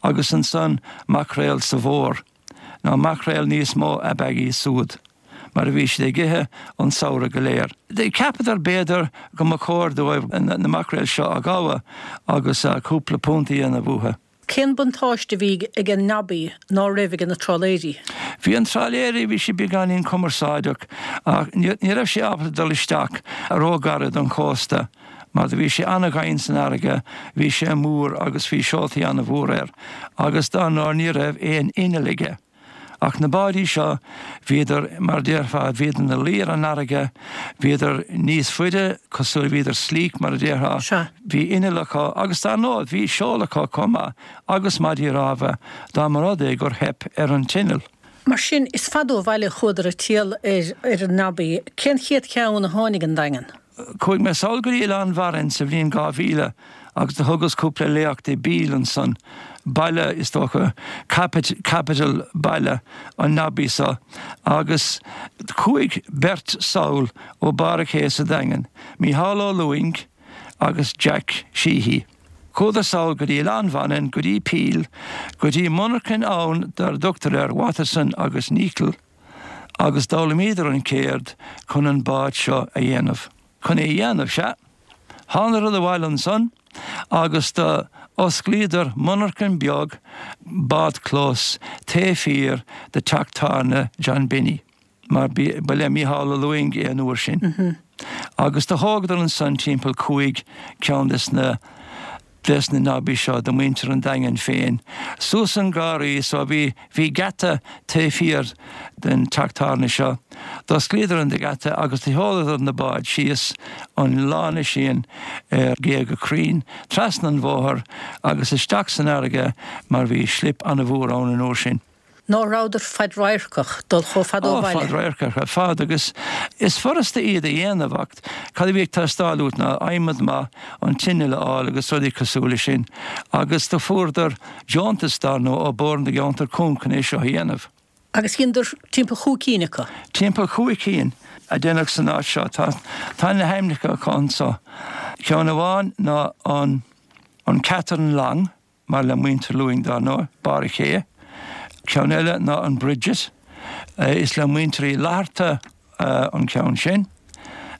agus ansan maicréal sa bhfómhar. Nó maicréal níos mó ab ea iad súd, mar a bhí siad ag ithe an samhradh go léir. Cheapadar b'fhéidir go mba chóir dóibh na maicréil seo a ghabhadh agus cúpla punt a dhéanamh uathu. Cén buntáiste a bhí ag an Nobby ná raibh ag na trálaeirí? Bhí an trálaeirí, bhí sé beagáinín cumarsáideach ach ní raibh sé ábalta dul isteach ró-ghairid don chósta. Mar do bhí sé ana-dhoimhin san fharraige, bhí sé mór agus bhí seoltaí ana-mhór air, agus dár ndóigh ní raibh aon inneall aige. Ach na báidí seo, bhíodar, mar déarfá, bhíodar ina luí ar an fharraige, bhíodar níos faide, cosúil, bhíodar sleek, mar a déarfá, Sea. bhí inneall acu, agus dár ndóigh bhí seol acu chomh maith, agus maidí rámha, dá mba rud é gur theip ar an t-inneall. Mar sin, is fada ó bhaile a chuadar ag triall ar ar an Nobby. Cén chéad cheann a tháinig an Daingean? Chuaigh mé sall go dtí Oileán Mharainn sa bhliain 2000 agus do thugas cúpla léacht i bPeele ansan, baile, is dócha, capital, baile an Nobby so, agus chuaigh beirt sall ó Barr a' Ché sa Daingean, Mícheál Ó Lúing agus Jack Sheehy. Chuadar sall go dtí Oileán Mhanainn, go dtí Peel, go dtí monarchain ann dar dtugtar air Waterson agus Neacle, agus d'fhoghlaimíodar an chéird chun an bád seo a dhéanamh. Chun é a dhéanamh, sea. Thánadar abhaile ansan agus do osclaíodar monarchain beag bádchlós taobh thiar de teach tábhairne John Binny, mar ba le Mícheál Ó Lúing é an uair sin. Agus do thógadar ansan timpeall chúig ceann des na. des na Nobbies seo do muintir an Daingin féin suas an garraí so bhí bhí geata taobh thiar den teach tábhairne seo. D'osclaíodar an geata agus do sheoladar na báid síos an lána sin ar ghéaga crainn trasna an bhóthair agus isteach san fharraige mar bhí slip ana-mhór ann an uair sin. Ná rabhadar fadradharcach dul chomh fada ó Ó, bhaile? fadradharcach ar fad agus is furasta iad a dhéanamh ach cad a bhí ag teastáil uait ná adhmad maith, an t-inneall a fháil agus rudaí cosúil leis sin agus do fuaireadar deontas dar ndóigh ó Bord na gCeantar Cúng chun é seo a dhéanamh. Agus dheineadar timpeall chúig cinn acu? Timpeall chúig cinn a deineadh san áit seo. Tá, tá na hainmneacha acu anso. Ceann amháin ná an, an Catherine Long. Mar le muintir Lúing dar ndóigh, Barr a' Ché. Ceann eile ná an Bridget. Is le muintir Uí Fhlatharta an ceann sin.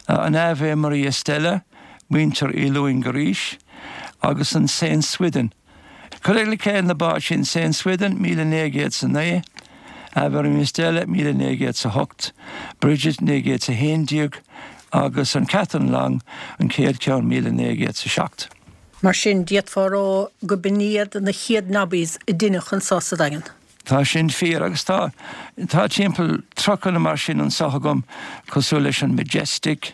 An Ave Maria Stella, muintir Uí Lúing arís. Agus an Saint Swithin. Cuireadh le chéile na báid sin, Saint Swithin, 1909, Ave Maria Stella, 1908, Bridget, 1911, agus an Catherine Long, an chéad cheann, 1907. Mar sin, d'fhéadfá a rá go b'in iad na chéad Nobbies a deineadh anso sa Daingean. Tá sin fíor, agus tá, tá timpeall 30 nó mar sin anso agam, cosúil leis an Majestic,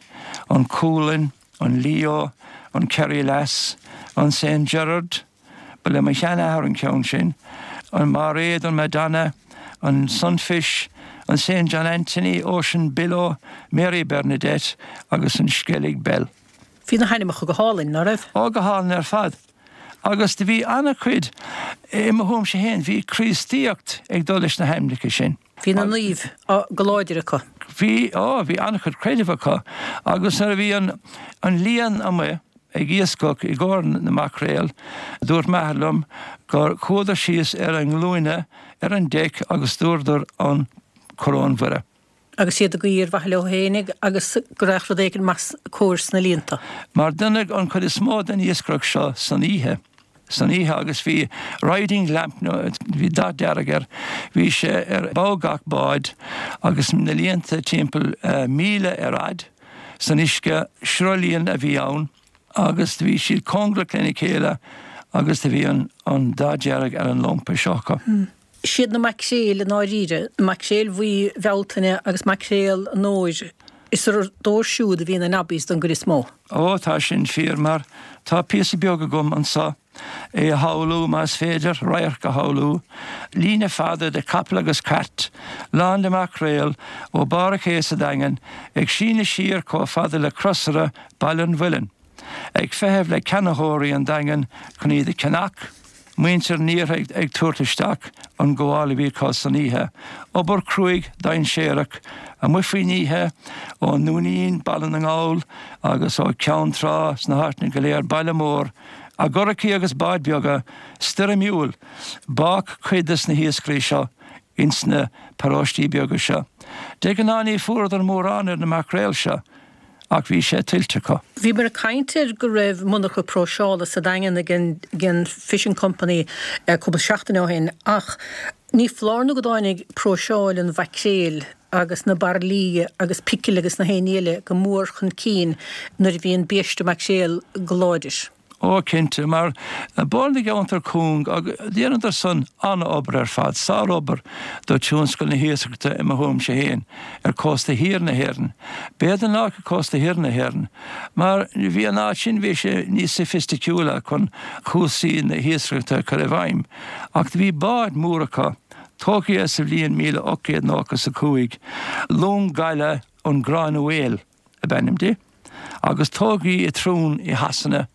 an Coolin, an Leo, an Kerry Lass, an Saint Gerard, ba le mo sheanathair an ceann sin, an Mairéad, an Madonna, an Sunfish, an Saint John Anthony, Ocean Billow, Mary Bernadette agus an Skellig Belle. Bhí na hainmneacha go hálainn, ná raibh? Ó, go hálainn ar fad. Agus do bhí ana-chuid, i mo thuairimse féin, bhí Críostaíocht ag dul leis na hainmneacha sin. Bhí na naoimh go láidir acu. Bhí, á, bhí ana-chuid creidimh acu. Agus nuair a bhí an, an líon amuigh ag iascach i gcomhair na maicréal, dúirt m'athair liom gur chuadar síos ar a nglúine ar an deic agus dúradar an Coróin Mhuire. Agus iad ag guí ar mhaithe leo féinig agus go raghadh rud éigin maith cóir sna líonta. Mar deineadh an chuid is mó den iascaireacht seo san oíche, san oíche agus bhí riding lamp nó bhí dath dearg air, bhí sé ar bhogha gach báid agus na líonta timpeall míle ar fhad san uisce, sruthlíon a bhí ann agus bhí siad cóngarach lena chéile agus do bhí an dath dearg ar an lampa seo acu. Siad na maicréil i ndáiríre, na maicréil bhuí Bhealtaine agus maicréal an fhómhair, is ar a dtóir siúd a bhí na nobbies don gcuid is mó. Ó, tá sin fíor, mar tá píosa beag agam anso, é a shamhlú, más féidir radharc a shamhlú, líne fada de chapaill agus cairt, lán de mhaicréil, ó barr an ché sa Daingean, ag síneadh siar chomh fada le Crosaire Baile an Mhuilinn. Ag feitheamh le ceannaitheoirí an Daingin chun iad a cheannach, muintir an iarthair ag tabhairt isteach an gabháil a bhí acu san oíche, obair chruaidh dainséarach amuigh faoin oíche, ón nDúinín, Baile na nGall agus ó Cheann Trá sna háiteanna go léir, Baile Mór, i gcurachaí agus báid beaga stoirmiúil, bádh cuid des na hiascairí seo ins na paróistí beaga seo. De ghnáth ní fuaireadar mórán ar na maicréil seo. ach bhí sé tuillte acu. Bhíomar ag caint ar go raibh monarcha próiseála sa Daingean ag an Fishing Company cúpla seachtain ó shin ach ní foláir nó go dtáinig próiseáil an mhaicréil agus na bairillí agus picil agus na haon ní eile go mór chun cinn nuair a bhí an biaiste maicréil go láidir. Ó, cinnte, mar Bord na gCeantar Cúng, agus dheineadar san an-obair ar fad, sár-obair do tionscal na hiascaireachta i mo thuairimse féin, ar cósta thiar na hÉireann. B'fhéidir nách ar cósta thoir na hÉireann, mar bhí an áit sin, bhí sé níos soifisticiúla chun cúrsaí na hiascaireachta a chur i bhfeidhm. Ach do bhí báid mór acu, tógtha sa bhliain 1895, long gaile an Granuaile ab ainm di. agus tógadh í i Troon i Shasana.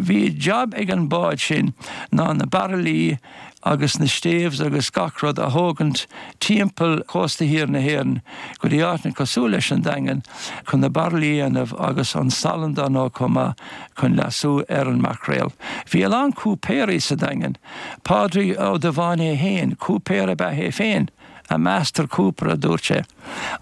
Bhí jab ag an bád sin ná na bairillí agus na staves agus gach rud a thógaint timpeall chósta thiar na hÉireann go dtí áiteanna cosúil leis an Daingean chun na bairillí a dhéanamh agus an salann dar ndóigh chomh maith chun leasú ar an maicréal. Bhí a lán cúipéirí sa Daingean. Pádraig Ó Dubháin é féin, cúipéir ab ea é féin. A master cooper, a dúirt sé.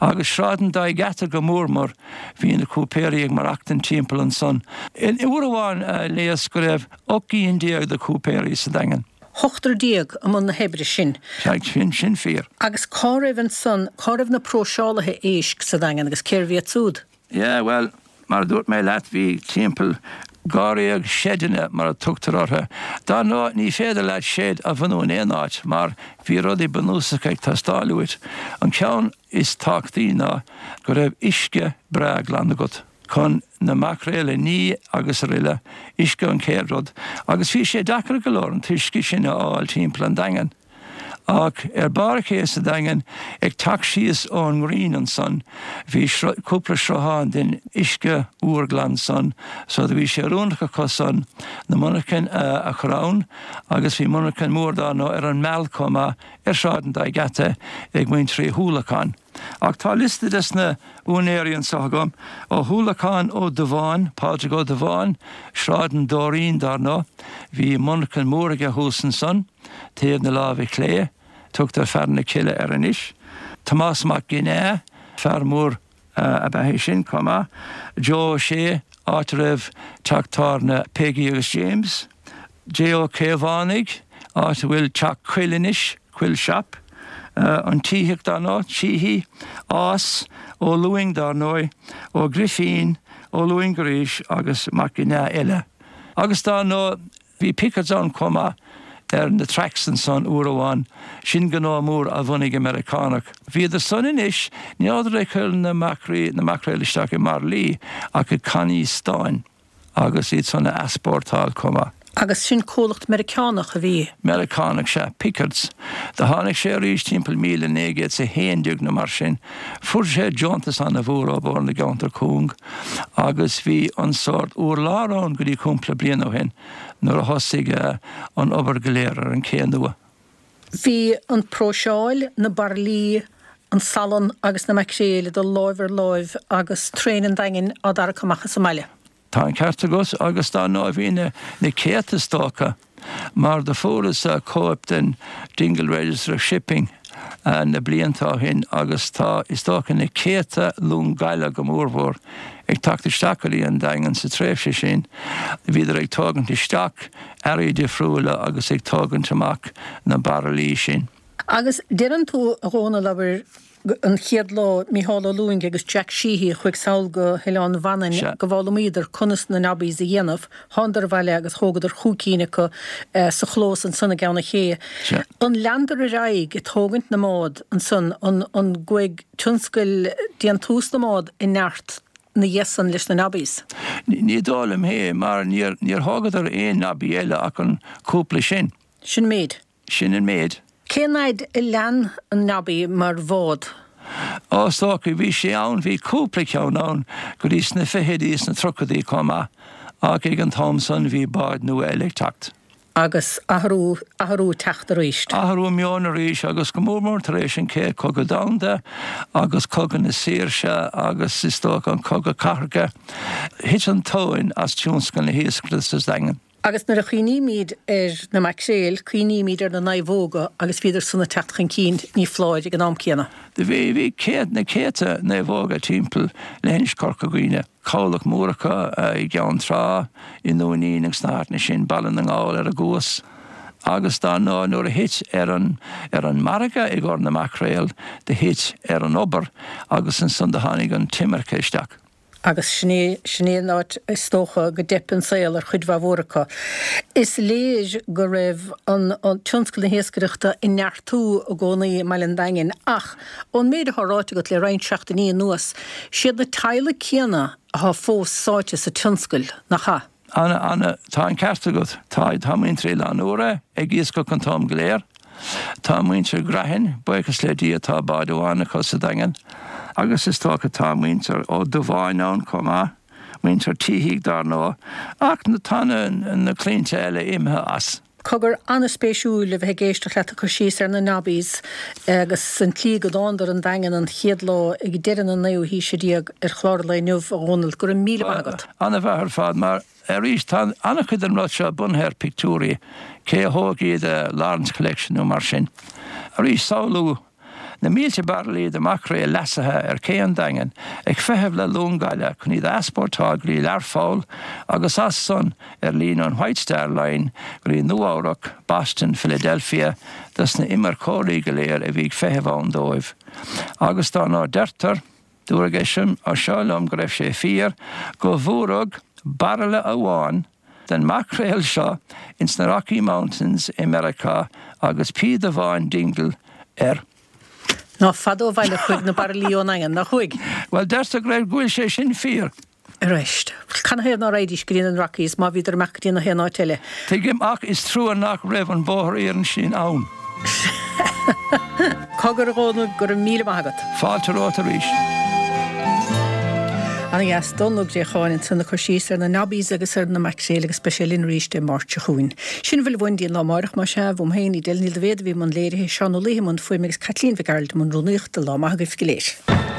Agus Sráid an Dá Gheata go mór mór, bhí na cúipéirí ag maireachtaint timpeall ansan. Uair amháin léas go raibh 18 gcinn de chúipéirí sa Daingean. Ochtar déag i mbun na hoibre sin. Sea, sin, sin fíor. Agus cá raibh ansan, cá raibh na próiseálaithe éisc sa Daingean agus cérbh iad siúd? Yeah, bhuel, mar a dúirt mé leat, bhí timpeall dháréag seideanna, mar a tugtar orthu. Dar ndóigh, ní féidir leat seid a bhunú in aon áit mar bhí rudaí bunúsacha ag teastáil uait. An ceann is tábhachtaí ná go raibh uisce breá glan agat chun na maicréil a ní agus aroile, uisce an chéad rud. Agus bhí sé deacair go leor an t-uisce sin a fháil timpeall an Daingin. Ach ar barr an ché sa Daingean, ag teacht síos ón nGreen ansan, bhí cúpla sruthán den uisce úr glan san, so do bhí sé oiriúnach acu san na monarchain a chur ann, agus bhí monarchain mór dar ndóigh ar an Meal chomh maith, ar Shráid an Dá Gheata ag muintir Uí hUallacháin. Ach tá liosta des na úinéirí anso agam, Ó hUallacháin, Ó Dubháin, Pádraig Ó Dubháin, Sráid an Dóirín dar ndóigh, bhí monarchain mór aige thuas ansan, Taobh na láimhe clé, tugtar Fearann na Cille air anois. Tomás Mac Ginneá, fear mór ab ea é sin chomh maith. Joe Ó Sé, áit a raibh teach tábhairne Peggy agus James. J. Ó Caomhánaigh, áit a bhfuil teach Coill anois, Coill Shop. An Títheach dar ndóigh, Sheehy, Ás, Ó Lúing dar ndóigh, Ó Grifín, Ó Lúing arís agus Mac Ginneá eile. Agus dar ndóigh, Bhí Pickards ann chomh maith ar na tracks ansan uair amháin, sin gnó mór a bhunaigh an Meiriceánach. Bhíodar san anois, ní rabhadar ag cur na maicrí, na maicréil isteach i mbairillí ach i cannaí stáin agus iad san a easpórtáil chomh maith. Agus sin comhlacht Meiriceánach a bhí. Meiriceánach, sea, Pickards. Do tháinig sé arís timpeall 1911 nó mar sin. Fuair sé deontas ana-mhór ó Bhord na gCeantar Cúng agus bhí an sórt urlár ann go dtí cúpla bliain ó shin nuair a thosaigh an obair go léir ar an ché nua. Bhí an próiseáil, na bairillí, an salann agus na maicréil ag dul láimh ar láimh agus traein an Daingin á dtarrac amach as an mbaile. Tá an ceart agat, agus dar ndóigh bhí na céadta is dócha, mar do fuaireas cóip den Dingle Register of Shipping na blianta ó shin agus tá is dócha na céadta long gaile go mórmhór ag teacht isteach go dtí an Daingean sa tréimhse sin. Bhíodar ag tógaint isteach earraí difriúla agus ag tógaint amach na bairillí sin. Agus deireann tú, a Dhónaill, abair, an chéad lá, Mícheál Ó Lúing agus Jack Sheehy a chuaigh sall go hOileán Mhanainn go bhfoghlaimíodar conas na nobbies a dhéanamh, thánadar abhaile agus thógadar chúig cinn acu sa chlós ansan i gCeann an Ché. An leanadar ar aghaidh ag tógaint na mbád ansan, an gcuaigh tionscal déantús na mbád i neart 'na dhiaidh san leis na nobbies? Ní dóigh liom é mar níor thógadar aon nobby eile ach an cúpla sin. Sin an méid. Sin an méid. Cén fhaid a lean an Nobby mar bhád? Ó, is dócha, bhí sé ann, bhí cúpla ceann ann go dtí sna fichidí is sna tríochaidí chomh maith, ach ag an t-am san bhí báid nua eile ag teacht. Agus athrú, athrú ag teacht arís. Athrú meoin arís agus go mór mór tar éis an Chéad Chogadh Domhanda agus Cogadh na Saoirse agus is dócha an Cogadh Cathartha, thit an tóin as tionscal na hiascaireachta sa Daingean. Agus nuair a chuimhnímid ar na maicréil, cuimhnímid ar na naomhóga agus bhíodar san ag teacht chun cinn, ní foláir, ag an am céanna. Do bhí, bhí céad, na céadta naomhóga timpeall leithinis Chorca Dhuibhne, cabhlach mór acu i gCeann Trá, i nDúinín agus sna háiteanna sin, Baile na nGall ar an gCuas. Agus dar ndóigh nuair a thit ar an, ar an margadh i gcomhair na maicréal, do thit ar an obair agus ansan do tháinig an t-imirce isteach. Agus sin é, sin é an áit is dócha go dteip an saol ar chuid mhaith mhór acu. Is léir go raibh an tionscal na hiascaireachta ag neartú i gcónaí i mbaile an Daingin ach ón méid atá ráite agat le roinnt seachtainí anuas, siad na teaghlaigh céanna atá fós sáite sa tionscal, nach ea? Ana, ana, tá an ceart agat. Tá, tá muintir Oileán Úra ag iascach an t-am go léir. Tá muintir Grehan, buíochas le Dia tá bád amháin acu sa Daingean. Agus is dócha tá muintir Ó Dubháin ann chomh maith, muintir Títhigh dár ndóigh, ach tá na, na claimhte eile imithe as. Cogar, an-spéisiúil a bheith ag éisteacht leat ag cur síos ar na Nobbies agus an tslí go dtánadar 'on Daingean an chéad lá ag deireadh na naoú haoise déag ar chlár an lae inniu, a Dhónaill. Go raibh míle maith agat. An-mhaith ar fad, mar arís tá an-chuid den rud seo bunaithe ar pictiúirí, cé a thóg iad, Lawrence Collection nó mar sin. Arís, samhlú. Na mílte bairillí de mhaicréil leasaithe ar ché an Daingin ag feitheamh le long gaile chun iad a easpórtáil go dtí Learpholl agus as san ar líne an White Star Line go dtí Nua Eabhrac, Boston, Philadelphia dos na imirceoirí go léir a bhí ag feitheamh ann dóibh. Agus dár ndóigh deirtear, dúradh é seo liom go raibh sé fíor, go bhfuaradh bairille amháin den maicréal seo ins na Rocky Mountains i Meiriceá agus píoda amháin Dingle air. Ná fada ó bhaile a chuaigh na bairillí ón nDaingean, nár chuaigh? Bhuel, deirtear go raibh, go bhfuil sé sin fíor. Arís, canathaobh ná raghaidís go dtí na Rockies má bhíodar amach go dtí na haon áit eile? Tuigim, ach is trua nach raibh an bóthar iarainn sin ann. Cogar, a Dhónaill, go raibh míle maith agat. Fáilte romhat arís. Ana dheas, Dónal Ó Préacháin ansan ag cur síos ar na Nobbies agus ar na maicréil agus beidh sé linn arís Dé Máirt seo chugainn. Sin a bhfuil uainn dtí an lá amáireach, más ea, uaim féin, Edel Ní Dhaibhéad a bhí i mbun léirithe, Seán Ó Laoithe i mbun fuaime agus Caitlín Mhic Gearailt i mbun rúnaíochta. Lá maith agaibh go léir.